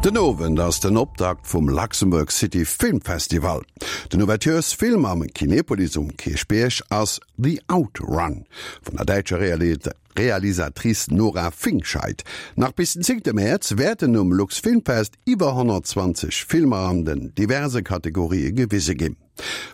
Den Owend ass den Optakt vum Luxembourg City Film Festival. Den Ouverturesfilm am Kinepolis um Kierchbierg ass The Outrun vun der däitscher Realisatrice Nora Fingscheidt. Nach bis den zéngte Mäerz wäerten um Luxfilmfest iwwer 120 Filmer an den diverse Kategorië gewise ginn.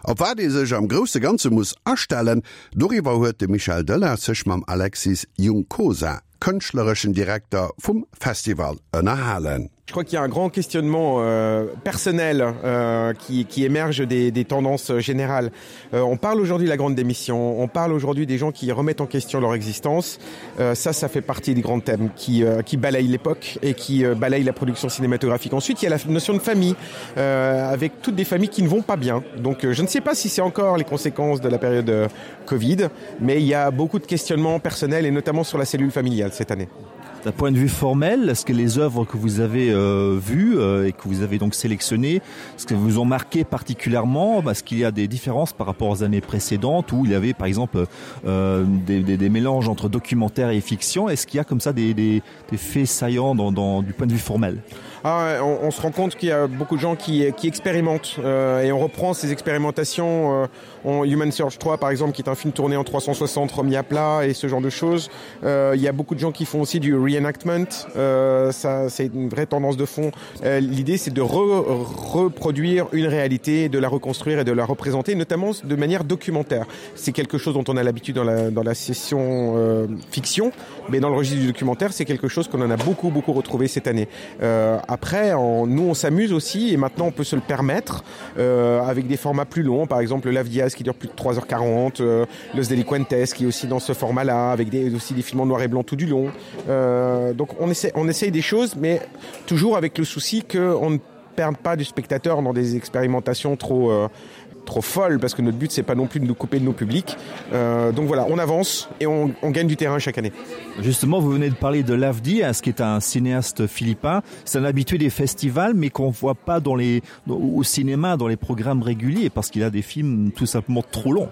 Op wat ee sech am grousse Ganze muss astellen, doriwwer huet de Michel Delage sech mam Alexis Juncosa, kënschtlereschen Direkter vum Festival, ënnerhalen. Je crois qu'il y a un grand questionnement euh, personnel euh, qui, qui émerge des, des tendances générales. Euh, on parle aujourd'hui de la grande démission, on parle aujourd'hui des gens qui remettent en question leur existence. Euh, ça, ça fait partie des grands thèmes qui, euh, qui balayent l'époque et qui euh, balayent la production cinématographique. Ensuite, il y a la notion de famille, euh, avec toutes des familles qui ne vont pas bien. Donc euh, je ne sais pas si c'est encore les conséquences de la période euh, Covid, mais il y a beaucoup de questionnements personnels et notamment sur la cellule familiale cette année. D'un point de vue formel, est-ce que les œuvres que vous avez euh, vues euh, et que vous avez donc sélectionnées, ce que vous ont marqué particulièrement parce qu'il y a des différences par rapport aux années précédentes où il y avait par exemple euh, des, des, des mélanges entre documentaire et fiction, est-ce qu'il y a comme ça des, des, des faits saillants dans, dans, du point de vue formel ah, on, on se rend compte qu'il y a beaucoup de gens qui, qui expérimentent euh, et on reprend ces expérimentations euh, en Human Search 3 par exemple qui est un film tourné en 360 remis à plat et ce genre de choses. Euh, il y a beaucoup de gens qui font aussi du reenactment, euh, ça c'est une vraie tendance de fond. Euh, L'idée c'est de re reproduire une réalité, de la reconstruire et de la représenter notamment de manière documentaire. C'est quelque chose dont on a l'habitude dans la, dans la session euh, fiction, mais dans le registre du documentaire c'est quelque chose qu'on en a beaucoup beaucoup retrouvé cette année. Euh, après en, nous on s'amuse aussi et maintenant on peut se le permettre euh, avec des formats plus longs, par exemple le Lavdias qui dure plus de 3h40, euh, Los Delinquentes qui est aussi dans ce format là avec des, aussi des films en noir et blanc tout du long. Euh, donc on essaie, on essaye des choses mais toujours avec le souci qu'on ne perde pas du spectateur dans des expérimentations trop euh, trop folles parce que notre but c'est pas non plus de nous couper de nos publics. Euh, donc voilà, on avance et on, on gagne du terrain chaque année. Justement, vous venez de parler de l'Avdi, ce qui est un cinéaste philippin, c'est un habitué des festivals mais qu'on voit pas dans les au cinéma dans les programmes réguliers parce qu'il a des films tout simplement trop longs.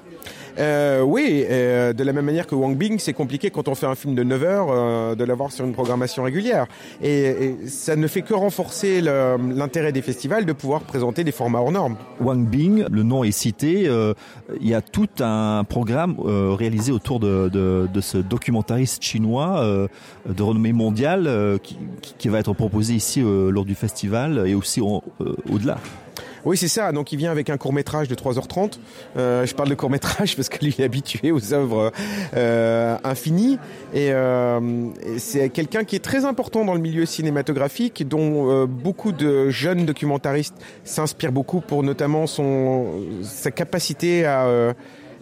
Euh, oui, euh, de la même manière que Wang Bing, c'est compliqué quand on fait un film de 9 heures euh, de l'avoir sur une programmation régulière. Et, et ça ne fait que renforcer l'intérêt des festivals de pouvoir présenter des formats hors normes. Wang Bing, le nom est cité, euh, il y a tout un programme euh, réalisé autour de, de, de ce documentariste chinois euh, de renommée mondiale euh, qui, qui va être proposé ici euh, lors du festival et aussi euh, au-delà. Euh, Oui c'est ça donc il vient avec un court métrage de 3h30 euh, je parle de court métrage parce que lui est habitué aux œuvres euh, infinies et, euh, et c'est quelqu'un qui est très important dans le milieu cinématographique dont euh, beaucoup de jeunes documentaristes s'inspirent beaucoup pour notamment son sa capacité à euh,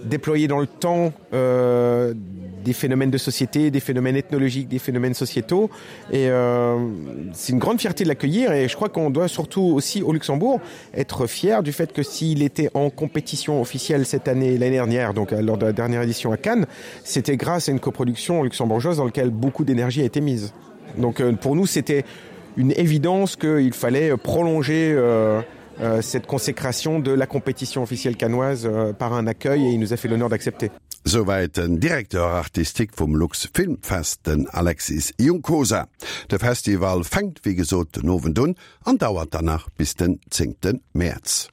déployer dans le temps euh, des phénomènes de société, des phénomènes ethnologiques, des phénomènes sociétaux. Et euh, c'est une grande fierté de l'accueillir et je crois qu'on doit surtout aussi au Luxembourg être fier du fait que s'il était en compétition officielle cette année l'année dernière, donc euh, lors de la dernière édition à Cannes, c'était grâce à une coproduction luxembourgeoise dans laquelle beaucoup d'énergie a été mise. Donc euh, pour nous c'était une évidence qu'il fallait prolonger euh, euh, cette consécration de la compétition officielle canoise euh, par un accueil et il nous a fait l'honneur d'accepter. Souwäit den Directeur artistique vum Lux Film Fest, den Alexis Juncosa. De Festival fänkt wéi gesot den Owend un an dauert dann nach bis den zéngte Mäerz.